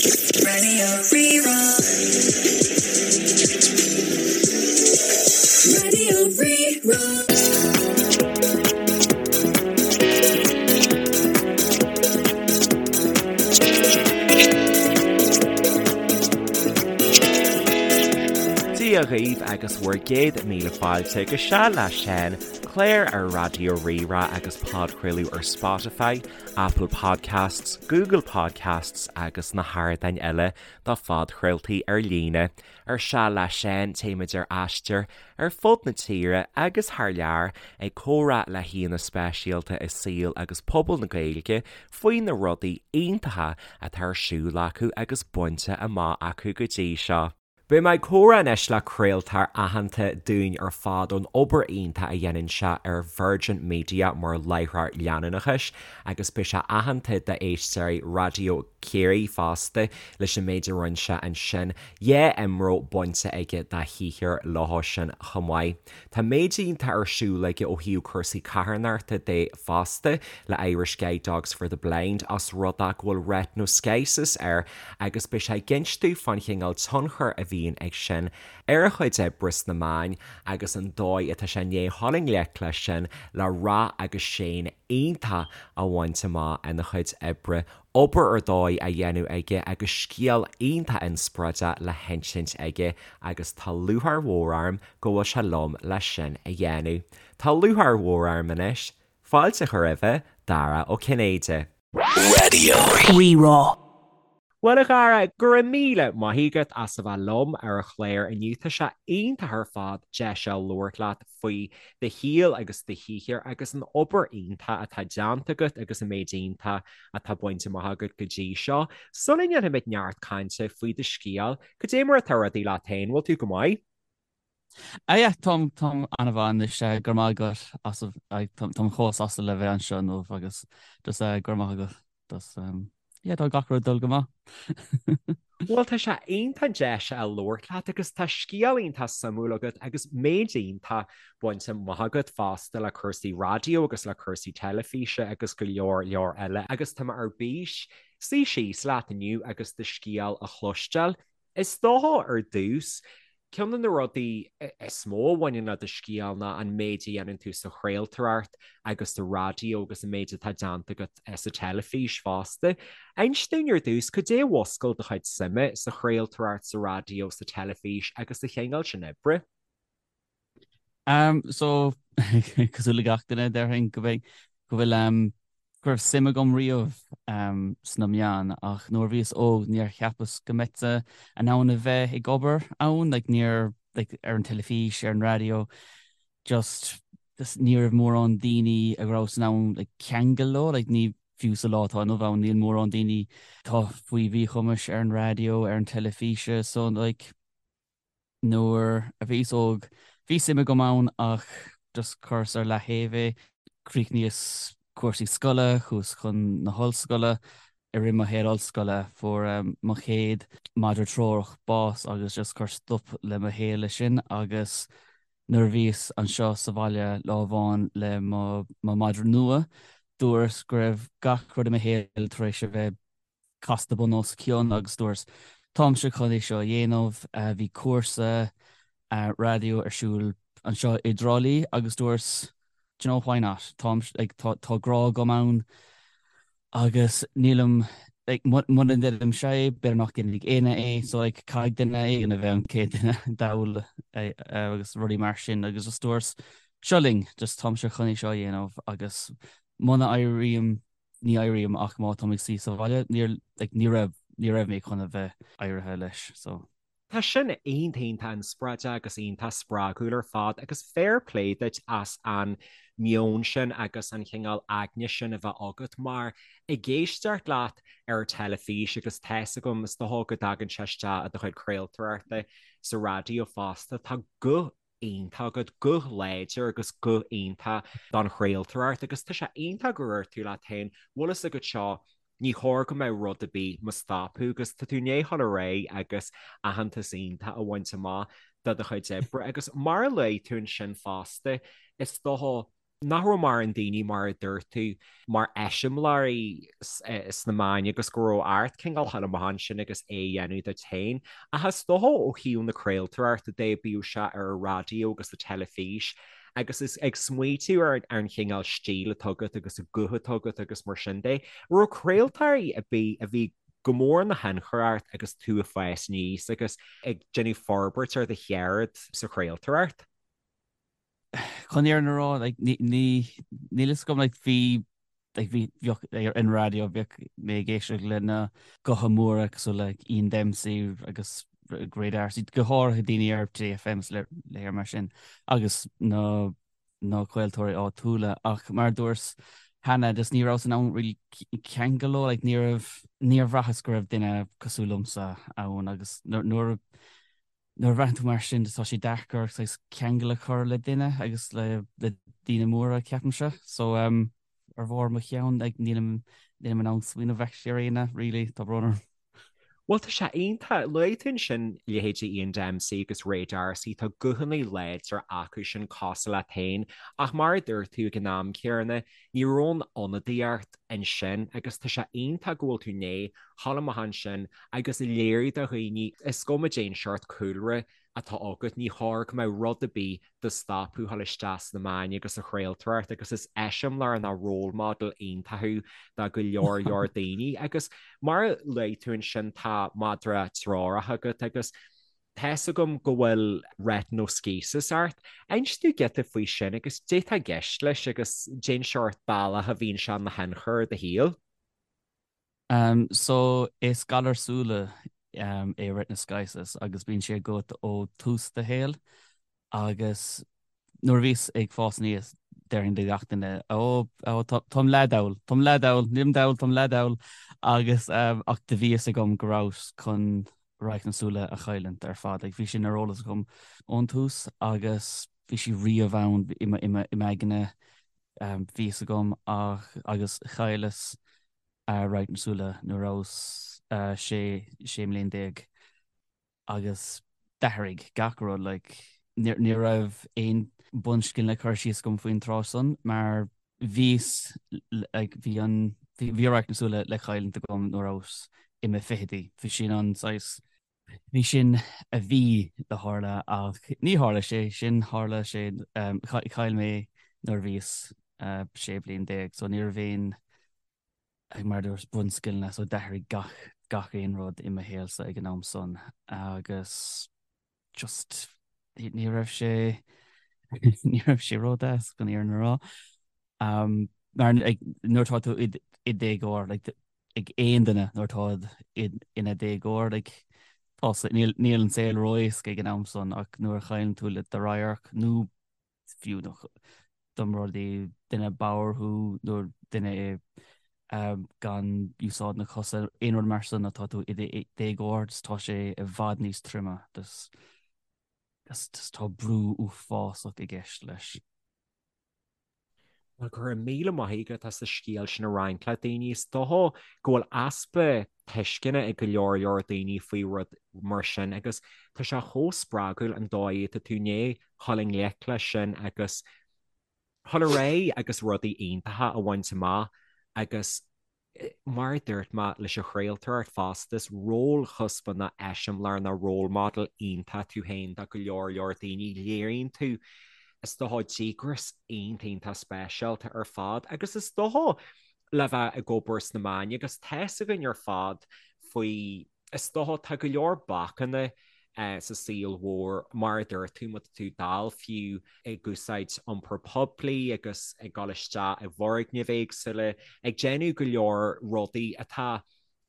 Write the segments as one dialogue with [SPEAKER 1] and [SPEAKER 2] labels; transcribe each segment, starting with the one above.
[SPEAKER 1] Radio Rí-Rá. Radio Rí-Rá.
[SPEAKER 2] Dia dhaoibh agus bhur gcéad míle fáilte go Seal le Seán, clár ar Raidió Rí-Rá agus podchraoladh ar Spotify, Apple Podcasts, Google Podcasts agus na hardáin eile do phodchraoltaí ar líne. Ar Seal le Seán, téimid ar aistear ar fud na tíre agus thar lear ag comhrá le haíonna speisialta i saol agus pobal na Gaeilge faoi na rudaí iontacha atá ar siúl acu agus bainte amach acu go dtí seo. Beidh mé ag comhrá anois le craoltóir aitheanta dúinn ar fad ón obair iontach a dhéanann sé ar Virgin Media mar láithreoir leanúnachais agus beidh sé aitheanta d'éisteoirí Raidió Ciarraí fosta leis an méid a rinne sé ansin. Dhá IMRO bainte aige dá shaothar leo sin chomh maith. Tá méid iontach ar siúl aige ó thaobh cúrsaí carthanachta de fosta le Irish Guide Dogs for the Blind os rud é go bhfuil retinoschisis air agus beidh sé ag inst dúinn fán chineál tionchair a bhíonn ag sin ar a chuid oibre sna meáin agus an dóigh atá sé i ndiaidh dhul i ngleic leis sin le rath agus séan iontach a bhaint amach ina chuid oibre obair ar dóigh á dhéanamh aige agus scéal iontach inspioráideach le hinsint aige agus tá lúcháir mhór orm go bhfuil sé liom leis sin a dhéanamh. Tá lúcháir mhór orm anois fáilte a chur roimhe, Dara Ó Cinnéide.
[SPEAKER 1] Radio. Rí-Rá.
[SPEAKER 2] Bhuel a Dhara, go raibh míle maith agat as a bheith liom ar an chlár inniu. Tá sé iontach ar fad deis a labhairt leat faoi do shaol agus do shaothar agus an obair iontach atá déanta agat agus an méid iontach atá bainte amach agat go dtí seo. Sula ndéanfaimid neart cainte faoi do scéal, cad é mar atá rudaí leat féin? Bhfuil tú go maith?
[SPEAKER 3] Ah yeah, táim, táim an-mhaith anois, go raibh maith agat as, táim chomh sásta le bheith anseo inniu agus just go raibh maith agat. Just, yeah, tá gach rud ag dul go maith.
[SPEAKER 2] Bhuel, tá sé iontach deis a labhairt leat agus tá scéal iontach suimiúil agat agus méid iontach bainte amach agat fosta le cúrsaí raidió agus le cúrsaí teilifíse agus go leor leor eile agus tá mé ar bís suí síos leat inniu agus do scéal a chloisteáil. Is dócha ar dtús, ceann de na rudaí is mó a bhaineann le do scéal ná an méid a dhéanann tú sa chraoltóireacht agus sa raidió agus an méid atá déanta agat sa teilifís fosta. Inis dúinn ar dtús, cad é a mhúscail do chuid suime sa chraoltóireacht, sa raidió, sa teilifís agus sa chineál sin oibre?
[SPEAKER 3] Um, so, cosúil le gach duine, déarfainn go mbeidh, go bhfuil, um, go raibh suim agam riamh um, sna meáin ach nuair a bhíos óg níor cheapas go mbeinn in ann a bheith ag obair ann, like, níor, like, ar an teilifís, ar an raidió, just, just ní raibh mórán daoine a rabhas in ann like, ceangal leo, like, ní, fiú sa lá atá inniu ann, níl mórán daoine atá faoi mhíchumais ar an raidió, ar an teilifíse, so like, Nuair a bhíos óg bhí suim agam ann ach just chuireas ar leaththaobh é. Chríochnaíos cúrsaí scoile, chuas chun na hollscoile. I rith mo shaol ollscoile fuair mo chéad madra treorach bás agus just chuir stop le mo shaol leis sin agus nuair a bhíos anseo sa bhaile lá amháin le mo madra nua dúras go raibh gach rud i mo shaol tar éis a bheith casta bun os cionn agus dúras táimse chun é seo a dhéanamh. Bhí cúrsa raidió ar siúl anseo i dTrá Lí agus dúras do you know why not? Táim like tá tá grá agam ann agus nílim like muna ndéanaimse é b'fhéidir nach ndéanfaidh éinne é so like caithfidh duine éigin a bheith an chéad duine d'fhoghlaim agus rudaí mar sin agus just dúras seo linn just táimse chun é seo a dhéanamh agus muna éirím ní éirím ach má táim ag suí sa bhaile, níor, like, ní raibh, ní raibh mé chun a bheith éirithe leis, so.
[SPEAKER 2] Tá sin iontach iontach inspioráideach agus iontach spreagúil ar fad agus fair play duit as an meon sin agus an chineál aigne sin a bheith agat mar ag éisteacht leat ar an teilifís agus tá's agam is dócha go dtagann sé isteach i do chuid craoltóireachta sa raidió fosta, tá guth iontach agat, guth láidir agus guth iontach don chraoltóireacht agus tá sé iontach gur dhúirt tú leat féin, bhfuil fhios agat seo, ní chóir go mbeadh rud ar bith mo stopadh agus tá tú i ndiaidh dhul ar aghaidh agus aitheantas iontach a bhaint amach do do chuid oibre agus mar a luaigh tú ansin fosta, is dócha. Nach raibh mórán daoine, mar a dúirt tú, mar eiseamláirí sna meáin agus go raibh ort cineál a ghabháil amach ansin agus é a dhéanamh duit féin. Ach is dócha ó thaobh na craoltóireachta de, bíodh sé ar an raidió agus an teilifís, agus is ag smaoitiú ar an chineál stíl atá agat agus an guth atá agat agus mar sin de, an raibh craoltóirí ar bith a bhí go mór ina thionchar ort agus tú ag fás aníos agus ag déanamh forbairt ar do cheird sa chraoltóireacht?
[SPEAKER 3] Chun an fhírinne a rá, like, ní, ní, níl fhios agam, like, bhí, like, bhí, bheadh, ar an raidió, bheadh mé ag éisteacht le na gutha móra cosúil le Ian Dempsey agus Ray D'Arcy, go háirithe daoine ar Today FM is le léir mar sin, agus na, na craoltóirí áitiúla, ach mar a dúras cheana, just ní rabhas in ann really ceangal leo, like, ní raibh, níor bhraitheas go raibh duine cosúil liomsa ann agus nuair a, Nuair a bhraitheann tú mar sin, tá sé deacair saghas ceangal a chur le duine agus le daoine móra, ceapaimse. So, ar bharr mo cheann, like, nílim, nílim in ann smaoineamh actually ar éinne, really, tá brón orm.
[SPEAKER 2] Bhuel, tá sé iontach. Luaigh tú ansin leithéidí Ian Dempsey agus Ray D'Arcy, tá guthanna láidre acu sin cosúil leat féin, ach mar a dúirt tú ag an am céanna, ní raibh aon ionadaíocht ansin agus tá sé iontach go bhfuil tú i ndiaidh a ghabháil amach ansin agus a léiriú do dhaoine, is cuma cén seort cúlra atá agat, ní chóir go mbeadh rud ar bith do stopadh a ghabháil isteach sna meáin agus sa chraoltóireacht agus is eiseamláir nó role model iontach thú do go leor leor daoine agus mar a luaigh tú ansin tá madra treorach agat agus tá's agam go bhfuil retinoschisis ort. Inis dúinn giota faoi sin agus cad é atá i gceist leis agus cén seort bealach a bhíonn sé ina thionchar ar do shaol.
[SPEAKER 3] So is galar súile é retinoschisis agus bíonn sé agat ó tús do shaoil agus nuair a bhíos ag fás aníos déarfainn le gach duine ó ó táim leath-dall, táim leath-dall, nílim dall, táim leath-dall agus ach do bhí fhios agam go rabhas chun radharc na súile a chailliúint ar fad. Like bhí sin ar eolas agam ón tús agus bhí sí riamh ann i m'aigne bhí fhios agam ach agus chailleas radharc na súile nuair a rabhas 16 mbliain agus d'athraigh gach rud like ní raibh aon bunscileanna cur síos agam faoin tráth san mar bhíos like bhí an bhí radharc na súile le cailliúint agam nuair a rabhas i mo fichidí bhí sin an saghas bhí sin a bhí le tharla ach ní tharla sé sin tharla sé chaill mé nuair a bhíos 16 bliain so ní raibh aon ag mar dúirt bunscileanna so d'athraigh gach gach aon rud i mo shaolsa ag an am san agus just ní raibh sé ní raibh sé ródheas chun an fhírinne a rá. Um, mar ag, nuair atá tú i i déagóir like, ag aon duine nuair atá ina déagóir like, tá níl níl an saol ró-éasca ag an am san ach nuair a chailleann tú le do radharc nó fiú dá mba rud é duine bodhar thú nó duine gan úsáid na cosa, aon rud mar san atá tú i déagóir, tá sé i bhfad níos troime. Tá brú uafásach i gceist leis.
[SPEAKER 2] Bhuel, go raibh míle maith agat as an scéal sin a roinnt le daoine. Is dócha go bhfuil easpa tuisceana ag go leor leor daoine faoi rud mar sin agus tá sé chomh spreagúil an dóigh atá tú i ndiaidh dhul i ngleic leis sin agus dhul ar aghaidh agus rudaí iontacha a bhaint amach agus mar a dúirt mé leis an chraoltóireacht fosta, is rólchuspa nó eiseamláir nó role model iontach tú féin do go leor leor daoine. Léiríonn tú, is dócha, díograis iontach iontach speisialta ar fad agus is dócha le bheith ag obair sna meáin agus tá's againn ar fad faoi, is dócha, tá go leor bacanna sa saol mhór, mar a dúirt tú, má tá tú dall fiú ag úsáid iompar poiblí agus ag dul isteach i bhfoirgnimh éagsúla, ag déanamh go leor rudaí atá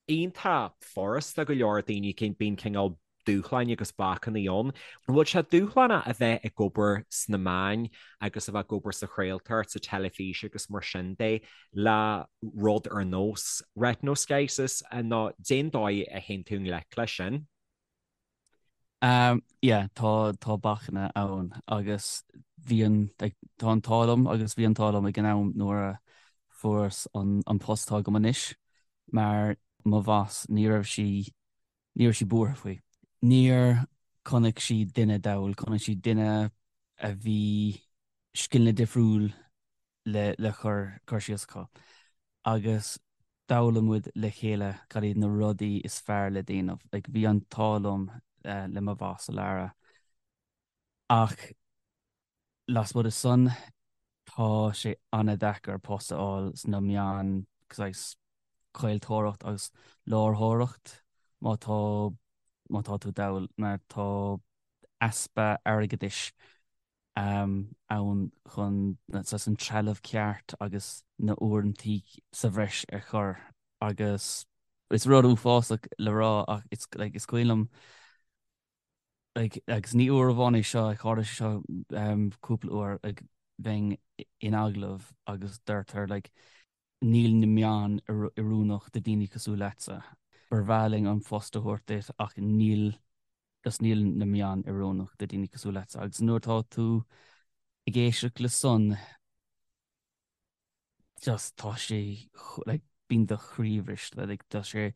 [SPEAKER 2] iontach furasta go leor daoine, bíonn cineál dúshláin agus bacanna ann. An bhfuil sé dúshlánach a bheith ag obair sna meáin agus a bheith ag obair sa chraoltóireacht, sa teilifís agus mar sin de le rud ar nós retinoschisis nó cén dóigh a théann tú i ngleic leis sin?
[SPEAKER 3] Yeah, tá tá bacanna ann agus bhí an like, tá an t-ádh liom agus bhí an t-ádh liom ag an am nuair a fuaireas an an post atá agam anois mar mo bhoss ní raibh sí Ní raibh sí buartha faoi. Níor chonaic sí duine dall, chonaic sí duine a bhí scileanna difriúil. le le cur cur síos acu agus d'fhoghlaim muid le chéile cad iad na rudaí is fearr le déanamh. Like bhí an t-ádh liom le mo bhoss Lara ach lasmuigh de san tá sé an-deacair post a fháil sna meáin saghas craoltóireacht agus láithreoireacht má tá má tá tú dall mar tá easpa airgeadais ann chun saghas an trealamh ceart agus na uaireantaí sa bhreis a chur agus is rud uafásach le rá ach it's like is cuimhin liom like agus ní uair amháin é seo tharla sé seo cúpla uair like bheinn in agallamh agus deirtear like níl na meáin oiriúnach do daoine cosúil leatsa. Ba bhreá linn an post a thabhairt duit ach níl just níl na meáin oiriúnach do daoine cosúil leatsa. Agus nuair atá tú ag éisteacht le san just tá sé like bíonn do chroí briste like tá sé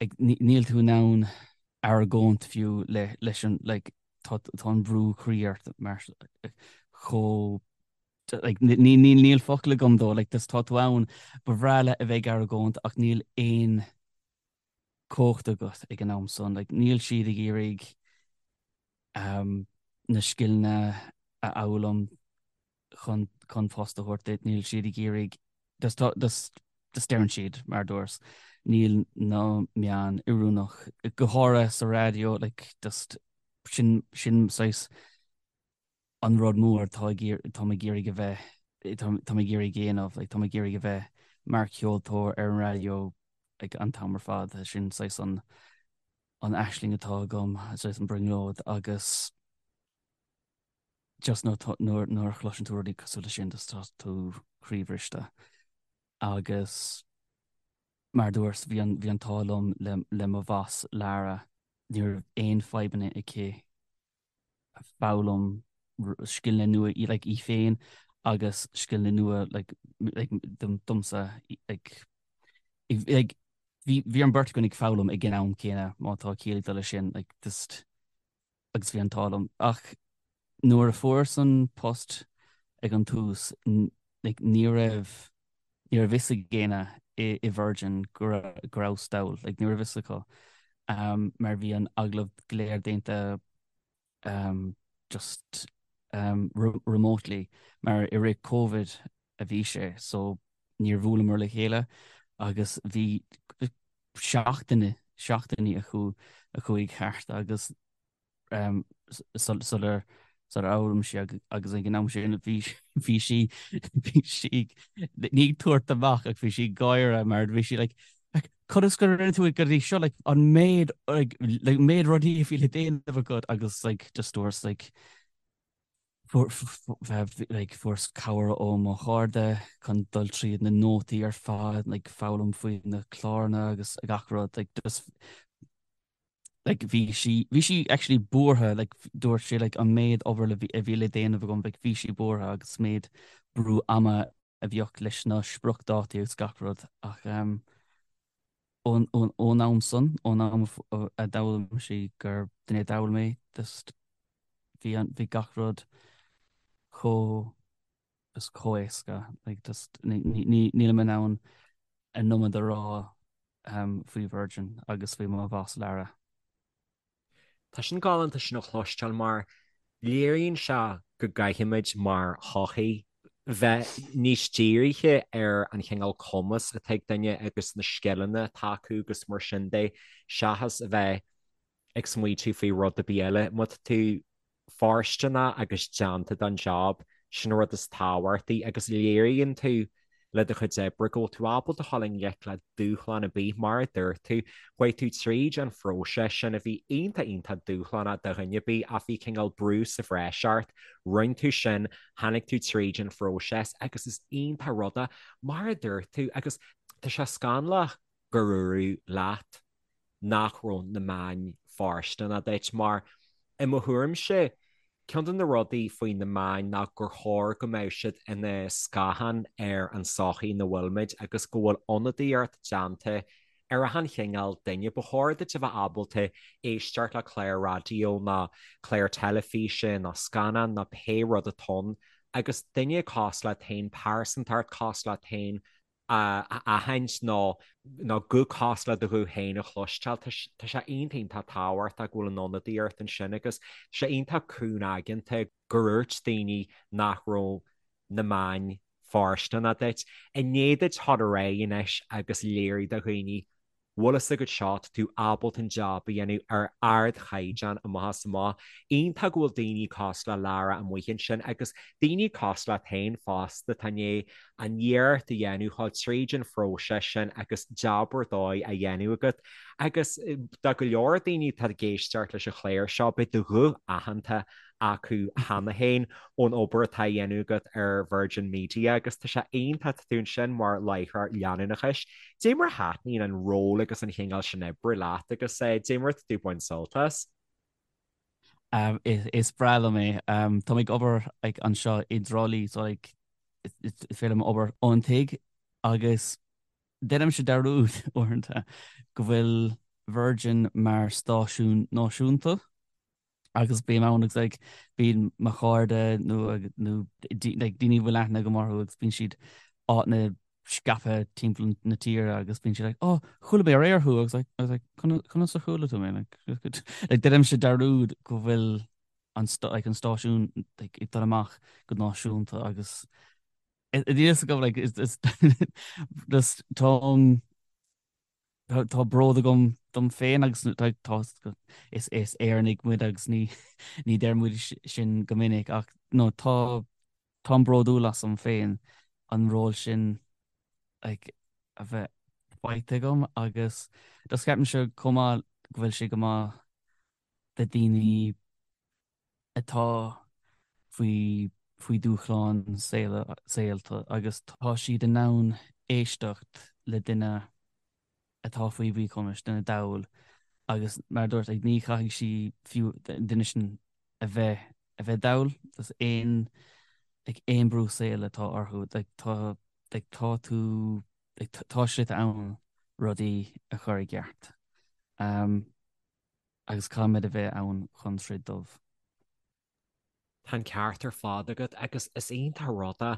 [SPEAKER 3] like níl tú in ann argóint fiú le leis an like tá tá an brú croí ort mar chomh like ní ní níl focal agam dó like just tá tú ann ba bhreá leat a bheith ag argóint ach níl aon cumhacht agat ag an am san like níl siad ag iarraidh um, na scileanna a fhoghlaim chun chun post a thabhairt duit níl siad ag iarraidh just tá just just deireann siad mar dúras níl na meáin oiriúnach go háirithe sa raidió like just sin sin saghas an rud mór atá ag iarr táim ag iarraidh a bheith táim ag iarraidh a dhéanamh like táim ag iarraidh a bheith mar cheoltóir ar an raidió like an t-am ar fad sin saghas an an aisling atá agam saghas an brionglóid agus just nuair nuair a chloiseann tú rudaí cosúil leis sin just tá tú croíbhriste agus mar dúirt bhí an bhí an t-ádh liom le le mo bhoss Lara ní raibh aon fadhbanna aici foghlaim scileanna nua like í féin agus scileanna nua like like domsa like like bhí bhí an bheirt againn ag foghlaim ag an am céanna má tá ciall ag dul leis sin like just agus bhí an t-ádh liom ach nuair a fuaireas an post ag an tús like ní raibh ní raibh fhios ag éinne i i Virgin go go rabhas dall like ní raibh fhios acu um, mar bhí an agallamh go léir déanta um, just um, remotely mar i rith Covid a bhí sé so níor bhuaileamar le chéile agus bhí seachtaine seachtainí a chu a chuaigh thart agus um, sular sular fhoghlaim sí agus ag an am sin bhí bhí sí bhí sí ní ag tabhairt amach ach bhí sí ag gáire mar bhí sí like conas gur rinne tú go dtí seo like an méid like like méid rudaí a bhí le déanamh agat agus like just dúirt like like fuaireas cabhair ó mo chairde chun dul tríd na nótaí ar fad like foghlaim faoi na cláranna agus gach rud like just like bhí sí bhí sí actually buartha like dúirt sí like an méid obair le a bhí le déanamh agam like bhí sí buartha agus méid brú ama a bhíodh leis na spriocdhátaí agus gach rud ach um, ón ón ón am san ón am a d'fhoghlaim sí gur duine dall mé just bhí an bhí gach rud chomh just chomh éasca like just ní ní nílim in ann an iomad a rá um, faoi Virgin agus faoi mo bhoss Lara.
[SPEAKER 2] Tá sin galánta sin a chloisteáil mar léiríonn sé go gcaithfimid mar shochaí bheith níos dírithe ar an chineál cumas atá ag duine agus na scileanna atá acu agus mar sin de seachas a bheith ag smaoitiú faoi rud ar bith eile. Má tá tú fóirsteanach agus déanta don job, sin an rud is tábhachtaí agus léiríonn tú le do chuid oibre go bhfuil tú ábalta a dhul i ngleic le dúshlán ar bith, mar a dúirt tú, chuaigh tú tríd an phróiseas sin a bhí iontach iontach dúshlánach do dhuine ar bith ach bhí cineál brú sa bhreis ort, rinne tú sin, tháinig tú tríd an phróiseas agus is iontach rud é, mar a dúirt tú, agus tá sé scannalach gur dúradh leat nach raibh na meáin fóirsteanach duit mar, i mo thuairimse, ceann de na rudaí faoi na meáin ná gur chóir go mbeadh siad ina scáthán ar an tsochaí ina bhfuilimid agus go bhfuil ionadaíocht déanta ar achan chineál duine. Ba chóir duit a bheith ábalta éisteacht le clár raidió nó clár teilifíse nó scannán nó pé rud atá ann. Agus duine cosúil leat féin, pearsantacht cosúil leat féin a aithint nó nó guth cosúil le do ghuth féin a chloisteáil, tá sé iontach iontach tábhachtach go bhfuil an ionadaíocht ansin agus tá sé iontach cúngaigeanta gur dhúirt daoine nach raibh na meáin fóirsteanach duit. I ndiaidh duit dhul ar aghaidh anois agus léiriú do dhaoine bhfuil fhios agat seo, tá tú ábalta an jab a dhéanamh ar ardchaighdeán amach is amach. Iontach go bhfuil daoine cosúil le Lara amuigh ansin agus daoine cosúil leat féin fosta atá i ndiaidh an iarracht a dhéanamh dhul tríd an phróiseas sin agus jab ar dóigh á dhéanamh agat. Agus do go leor daoine atá ag éisteacht leis an chlár seo, beidh do ghuth aitheanta acu cheana féin ón obair atá á dhéanamh agat ar Virgin Media agus tá sé iontach tá tú ansin mar láithreoir leanúnachais. Dé mar a thaitníonn an ról agus an chineál sin oibre leat agus dé mar atá tú ag baint sult as?
[SPEAKER 3] Is breá liom é. Tá mé ag obair like anseo i dTrá Lí so like is féidir liom obair ón tigh agus deinimse dearúd uaireanta go bhfuil Virgin mar stáisiún náisiúnta. agus bím ann agus like bíonn mo chairde nó nó like daoine a bhfuil aithne agam orthu agus bíonn siad áiteanna scaipthe timpeall na tíre agus bíonn siad like oh chuala mé aréir thú agus like I was like conas a chuala tú mé like like deinimse dearúd go bhfuil an like an stáisiún like ag dul amach go náisiúnta agus níl fhios agam like is is just táim Tá bród agam dom féin agus tá is is Éireannaigh muid agus ní ní deir muid sin go minic ach no tá táim bródúil asam féin an ról sin like a bheith faighte agam agus just ceapaimse chomh maith go bhfuil sé go maith do daoine atá faoi faoi dúshláin saolta agus tá siad in ann éisteacht le duine atá faoi mhíchumas, duine dall agus mar a dúirt, ní chaithfidh sí fiú an duine sin a bheith a bheith dall, just aon like aon brú saoil atá orthu like tá like tá tú like tá slite ann rudaí a chur i gceart. Um, agus caithfimid a bheith ann chun troid dóibh.
[SPEAKER 2] Tá an ceart ar fad agat agus is iontach an rud é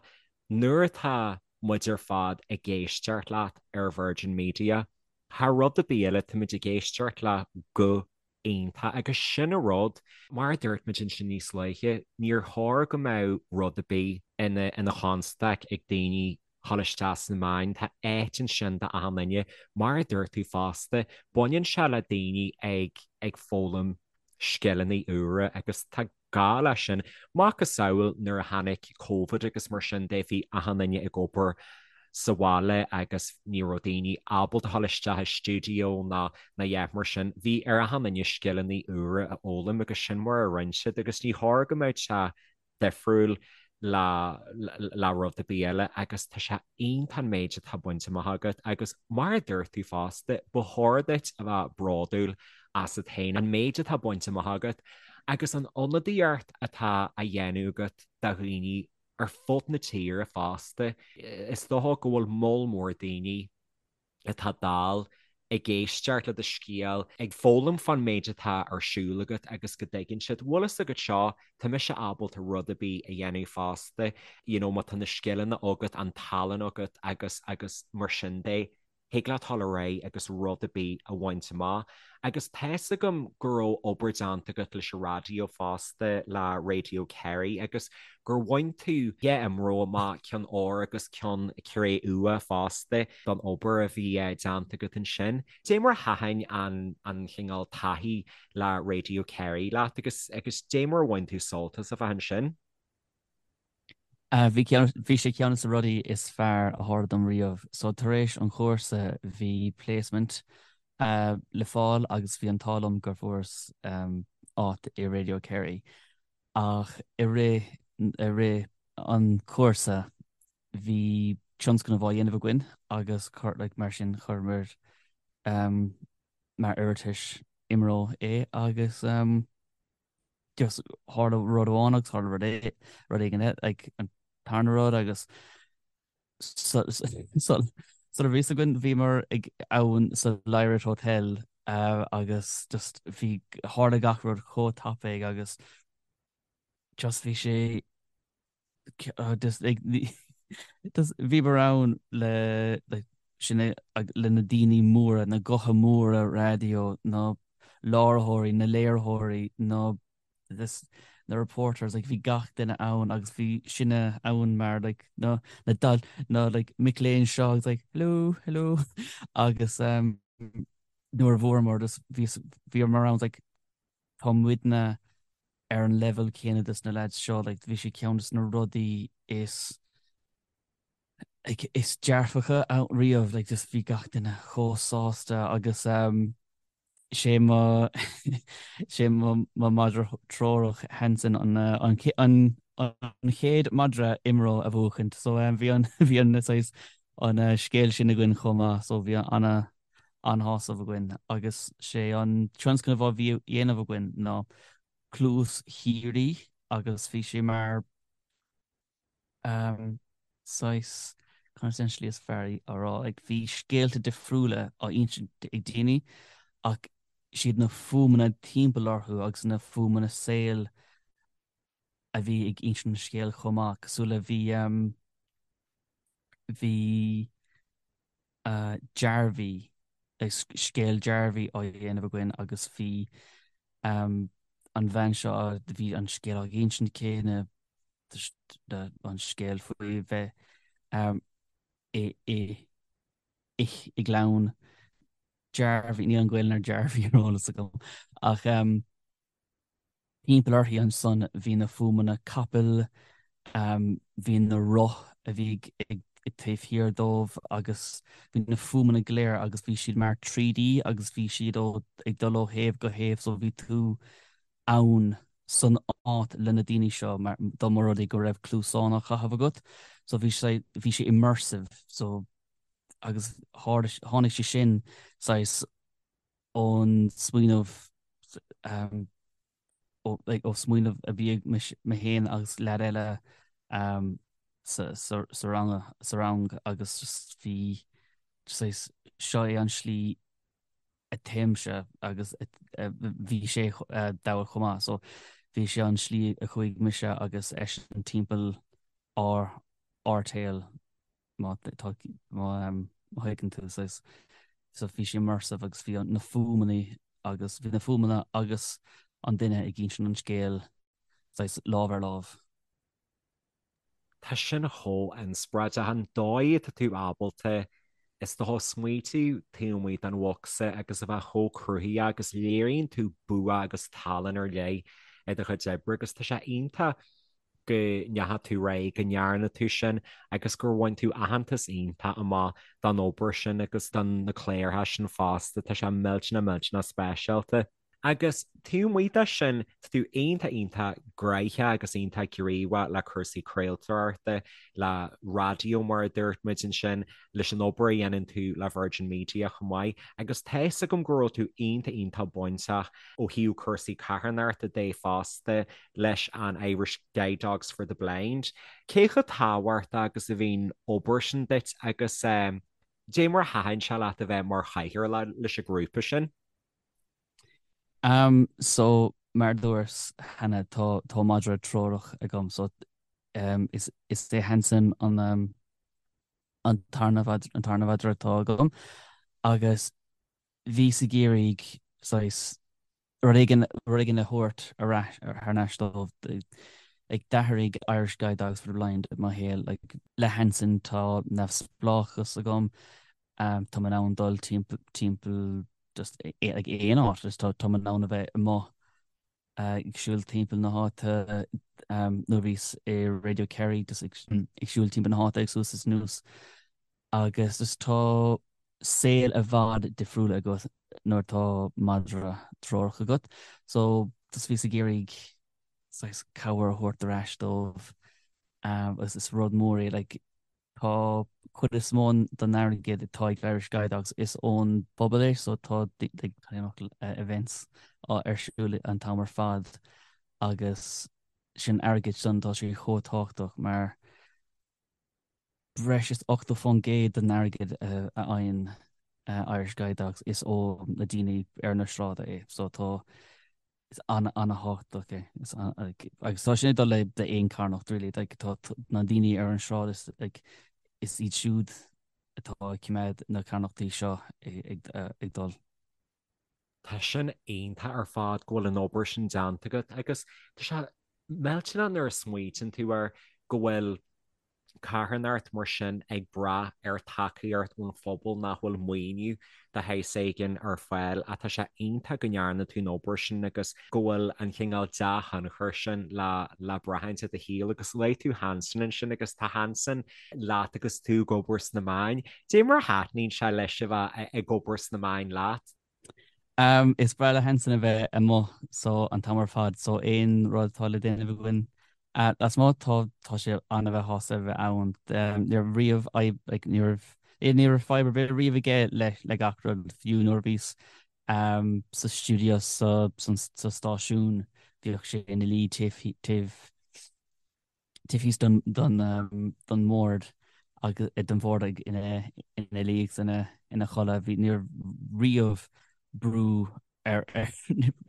[SPEAKER 2] nuair atá muid ar fad ag éisteacht leat ar Virgin Media, thar rud ar bith eile, táimid ag éisteacht le guth iontach agus sin an rud, mar a dúirt muid ansin níos luaithe, níor chóir go mbeadh rud ar bith ina chonstaic ag daoine dhul isteach sna meáin, tá áit ansin d'achan duine. Mar a dúirt tú fosta, baineann sé le daoine ag ag foghlaim scileanna úra agus tá gá leis sin. Macasamhail nuair a tháinig Covid agus mar sin de, bhí achan duine ag obair sa bhaile agus ní raibh daoine ábalta dhul isteach i stiúideo ná ná a dhath mar sin. Bhí ar achan duine scileanna úra a fhoghlaim agus sin mar a rinne siad agus ní chóir go mbeadh sé difriúil le le rud ar bith eile agus tá sé iontach an méid atá bainte amach agat agus mar a dúirt tú fosta, ba chóir duit a bheith bródúil asat féin, an méid atá bainte amach agat agus an ionadaíocht atá á dhéanamh agat do dhaoine ar fud na tíre fosta. Is dócha go bhfuil moll mór daoine atá dall ag éisteacht le do scéal, ag foghlaim fán méid atá ar siúl agat agus go dtuigeann siad, bhfuil fhios agat seo, tá mise ábalta rud ar bith a dhéanamh fosta, you know má tá na scileanna agat, an tallann agat agus agus mar sin de, thig leat dul ar aghaidh agus rud ar bith a bhaint amach. Agus tá's agam go raibh obair déanta agat leis an raidió fosta, le Radio Kerry, agus gur bhain tú dhá IMRO amach, ceann óir agus ceann cré-umha fosta, don obair a bhí déanta agat ansin. Dé mar a thaitin an an chineál taithí le Radio Kerry leat agus agus dé mar a bhain tú sult as a bheith ansin?
[SPEAKER 3] Bhí ceann, bhí sé ceann de na rudaí is fearr a tharla dom riamh. So tar éis an chúrsa bhí placement le fáil agus bhí an t-ádh liom gur fuaireas áit i Radio Kerry. Ach i rith, i rith an chúrsa bhí tionscnamh á dhéanamh againn agus chuir, like, mar sin chuireamar mar iarratas IMRO é agus just tharla rud amháin agus tharla rud é, rud éigin eile, like, an tarna rud agus sula raibh fhios againn bhíomar ag ann sa Lyrath Hotel agus just bhí, tharla gach rud chomh tapaidh agus just bhí sé. Just like just bhíomar ann le like sin le na daoine móra, na gutha móra raidió, na láithreoirí, na léiritheoirí, na this na reporters like bhí gach duine ann agus bhí sinne ann mar like na na dal na like mic léinn seo agus like hello hello agus um, nuair a bhuamar just bhí bhíomar ann like tá muidne ar an level céanna des na lads seo like bhí sé ceann des na rudaí is like is dearfacha ann riamh like just bhí gach duine chomh sásta agus um, sé mo sé mo mo madra treorach Hanson an an an an chéad madra IMRO a bhuachaint so um, bhí an bhí an saghas an uh, scéal sin againn chomh maith so bhí ana an-shásamh againn agus sé an tionscnamh a bhí á dhéanamh againn ná Cluas Shíoraí agus bhí sé mar um, saghas conas an slí is fearr a rá like, bhí scéalta difriúla á insint ag daoine ach siad na fuaimeanna timpeall orthu agus na fuaimeanna saoil a bhí ag insint an scéil chomh maith cosúil le bhí um, bhí Jarvey, scéal Jarvey á dhéanamh againn agus bhí an bhean seo, bhí an scéal á insint aici, na, an scéal faoi bheith i, i, i, i gclann Jarvey, níl an Ghaelainn ar Jarvey ar eolas agam ach Timpeall uirthi ansan bhí na fuaimeanna capaill, bhí na roth a bhí ag taobh thiar dóibh agus bhí na fuaimeanna go léir agus bhí siad mar 3D agus bhí siad ó ag dul ó thaobh go thaobh so bhí tú ann san áit le na daoine seo mar dá mba rud é go raibh cluasáin á chaitheamh agat so bhí sé bhí sé immersive so agus tháinig sé sin saghas ón smaoineamh ó smaoineamh a bhí ag mé féin agus leaid eile sa sa rang agus just bhí saghas seo é an slí a téimse agus bhí sé dall chomh maith so bhí sé an slí a chuaigh mise agus eisean timpeall ár ár tsaol. má tá má thuigeann tú saghas so bhí sé immersive agus bhí na fuaimeanna agus bhí na fuaimeanna agus an duine ag insint an scéil saghas lámh ar lámh.
[SPEAKER 2] Tá sin chomh inspioráideach an dóigh atá tú ábalta is dócha smaoitiú taobh amuigh den bhocsa agus a bheith chomh cruthaitheach agus léiríonn tú bua agus tallann ar leith i do chuid oibre agus tá sé iontach go ndeachaigh tú ar aghaidh, go ndearna tú sin agus gur bhain tú aitheantas iontach amach don obair sin agus don na cláracha sin fosta. Tá sé millteanach millteanach speisialta. Agus taobh amuigh de sin, tá tú iontach iontach gnoitheach agus iontach gníomhach le cúrsaí craoltóireachta, le raidió mar a dúirt muid ansin, leis an obair a dhéanann tú le Virgin Media chomh maith. Agus tá fhios agam go raibh tú iontach iontach bainteach ó thaobh cúrsaí carthanachta de fosta leis an Irish Guide Dogs for the Blind. Cé chomh tábhachtach agus a bhíonn obair sin duit agus dé mar a thaitin sé leat a bheith mar chathaoirleach leis an ghrúpa sin?
[SPEAKER 3] Um, so mar dúirt cheana tá tá madra treorach agam so um, is, is é Hanson an um, an tarna an tarna mhadra atá agam agus bhíos ag iarraidh saghas rud éigin rud éigin a thabhairt ar ais thar n-ais dóibh. Like d'athraigh Irish Guide Dogs for the Blind mo shaol. Like le Hanson tá neamhspleáchas agam, tá mé in ann dul timpeall timpeall just like aon áit, just tá tá mé in ann a bheith amuigh ag siúl timpeall na háite nuair a bhíos i Radio Kerry just ag siúl timpeall na háite ag suas is anuas. Agus just tá saol i bhfad difriúil agat nuair atá madra treorach agat. So just bhíos ag iarraidh saghas cabhair a thabhairt ar ais dóibh agus is rud mór é like tá cuid is mó den airgead atá ag Irish Guide Dogs is ón bpobal é so tá like events ar siúl an t-am ar fad agus sin airgead sin tá sé chomh tábhachtach mar breis is 80% den airgead a fhaigheann Irish Guide Dogs is ó na daoine ar na sráide é. So tá. Is an-an-thábhachtach é. Is agus tá sin ag dul le d'aon carthanacht really like tá na daoine ar an sráid is like is iad siúd atá ag coimeád na carthanachtaí seo ag ag dul.
[SPEAKER 2] Tá sin iontach ar fad go bhfuil an obair sin déanta agat agus tá sé millteanach nuair a smaoitíonn tú air go bhfuil carthanacht mar sin ag brath ar tacaíocht ón phobal nach bhfuil maoiniú de shaghas éigin ar fáil ach tá sé iontach go ndearna tú an obair sin agus go bhfuil an cineál dea-thionchar sin le le braithint i do shaol agus luaigh tú Hanson ansin agus tá Hanson leat agus tú ag obair sna meáin. Dé mar a thaitníonn sé leis a bheith ag obair sna meáin leat?
[SPEAKER 3] Is breá le Hanson a bheith amuigh so an t-am ar fad so aon rud atá le déanamh againn lasmuigh tá tá sé an-bheith shásta a bheith ann. Ní raibh riamh fadhb like ní raibh ní raibh fadhb ar bith riamh aige le le gach rud fiú nuair a bhíos sa stiúideo sa sa stáisiún bhíodh sé ina luí taobh taobh taobh thíos don don mbord agus den bhord ag ina ina luí agus ina ina chodladh. Bhí ní raibh riamh brú ar ar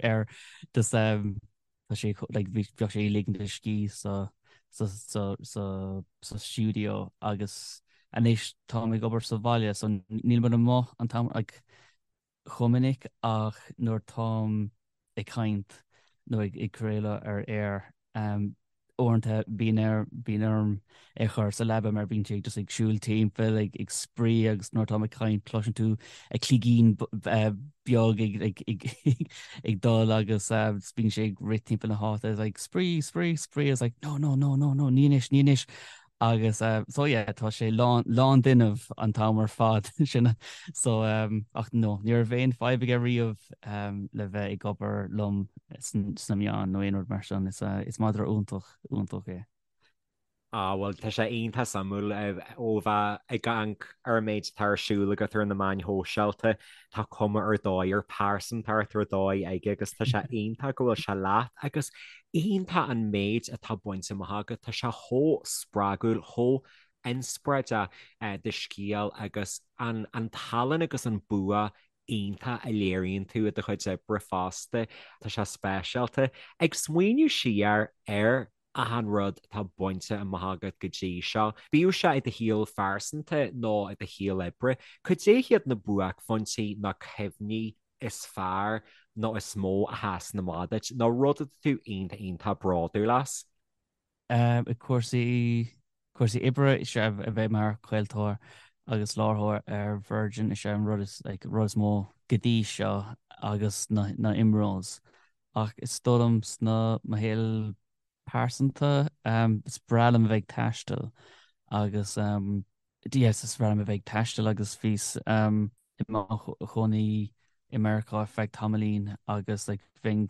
[SPEAKER 3] air just tá sé like bhí bheadh sé ag ligint a scíth sa sa sa sa sa stiúideo agus anois táim ag obair sa bhaile so níl muid amuigh an t-am like chomh minic ach nuair táim ag caint nó ag craoladh ar aer, uaireanta bíonn air, bíonn orm é a chur sa leaba mar bíonn sé just ag siúl timpeall, ag ag spraoi agus nuair táim ag caint cloiseann tú a cloigín beag ag ag ag ag dul agus bíonn sé ag rith timpeall na háite like spraoi, spraoi, spraoi, it's like no, no, no, no, no, ní anois, ní anois. Agus so yeah tá sé lán lán d'fhuinneamh an t-am ar fad sin so ach no ní raibh aon fadhb aige riamh le bheith ag obair liom sna meáin nó aon rud mar sin. Is is madra iontach iontach é.
[SPEAKER 2] Ah bhuel tá sé iontach suimiúil ó bheith ag amharc ar an méid atá ar siúl agat ar na meáin shóisialta, tá cuma ar dóigh ar pearsantacht ar dóigh aige agus tá sé iontach go bhfuil sé leat agus Iontach an méid atá bainte amach agat, tá sé chomh spreagúil, chomh inspioráideach do scéal agus an tallann agus an bua iontach a léiríonn tú i do chuid oibre fosta, tá sé speisialta. Ag smaoineamh siar ar achan rud atá bainte amach agat go dtí seo, bíodh sé i do shaol phearsanta nó i do shaol oibre, cad é hiad na buaicphointí nó cuimhní is fearr nó is mó a sheasann amach duit, nó rud atá tú iontach iontach bródúil as?
[SPEAKER 3] I cúrsaí cúrsaí oibre is ea a bheith mar chraoltóir agus láithreoir ar Virgin is ea an rud is like rud is mó go dtí seo agus na na IMROs. Ach is dóigh liom sna mo shaol pearsanta is breá liom a bheith ag taisteal agus yes is breá liom a bheith ag taisteal agus bhíos i mo chónaí i Meiriceá ar feadh tamaillín agus like bheinn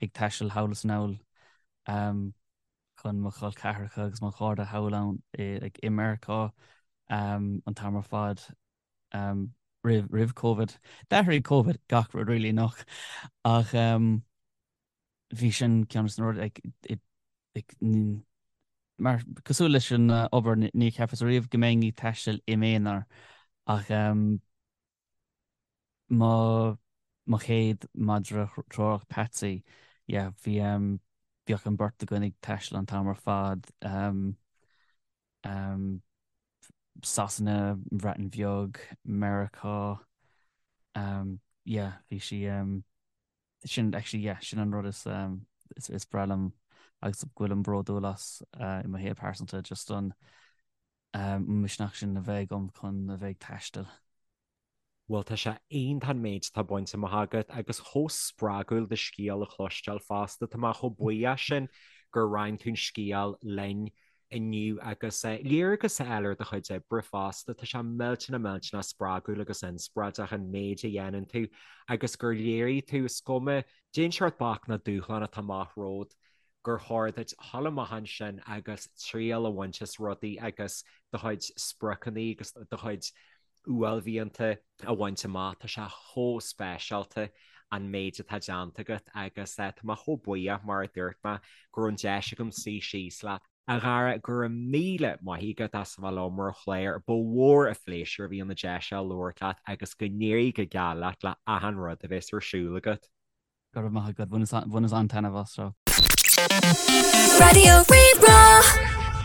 [SPEAKER 3] ag taisteal thall is anall chun mo chol ceathracha agus mo chairde thall ann i like i Meiriceá an t-am ar fad roimh roimh Covid. D'athraigh Covid gach rud really nach ach bhí sin ceann de na rudaí like mar cosúil leis an obair ní cheapas riamh go mbeinn ag taisteal i m'aonar ach mo mo chéad madra treorach Patsy yeah bhí bhíodh an beirt againn ag taisteal an t-am ar fad Sasana, an Bhreatain Bheag, Meiriceá yeah bhí sí Sin actually yeah sin an rud is is is breá liom agus go bhfuilim bródúil as i mo shaol pearsanta just an misneach sin a bheith agam chun a bheith ag taisteal.
[SPEAKER 2] Bhuel tá sé iontach an méid atá bainte amach agat agus chomh spreagúil do scéal a chloisteáil fosta. Tá mé chomh buíoch sin gur roinn tú an scéal linn inniu agus léargas a fháil ar do chuid oibre fosta. Tá sé millteanach millteanach spreagúil agus inspioráideach an méid a dhéanann tú agus gur léirigh tú, is cuma cén seort bac nó dúshlán atá amach romhat, gur chóir duit dhul amach ansin agus triail a bhaint as rudaí agus do chuid spriocanna agus do chuid uaillmhianta a bhaint amach. Tá sé chomh speisialta an méid atá déanta agat agus tá mé chomh buíoch, mar a dúirt mé, go raibh an deis agam suí síos leat. A Dhara, go raibh míle maith agat as a bheith liom ar an chlár. Ba mhór an phléisiúr a bhí ann an deis seo labhairt leat agus go n-éirí go geal leat le achan rud a bheas ar siúl agat.
[SPEAKER 3] Go raibh maith agat, bhaineas an-taitneamh as seo.
[SPEAKER 1] Raidió Rí-Rá.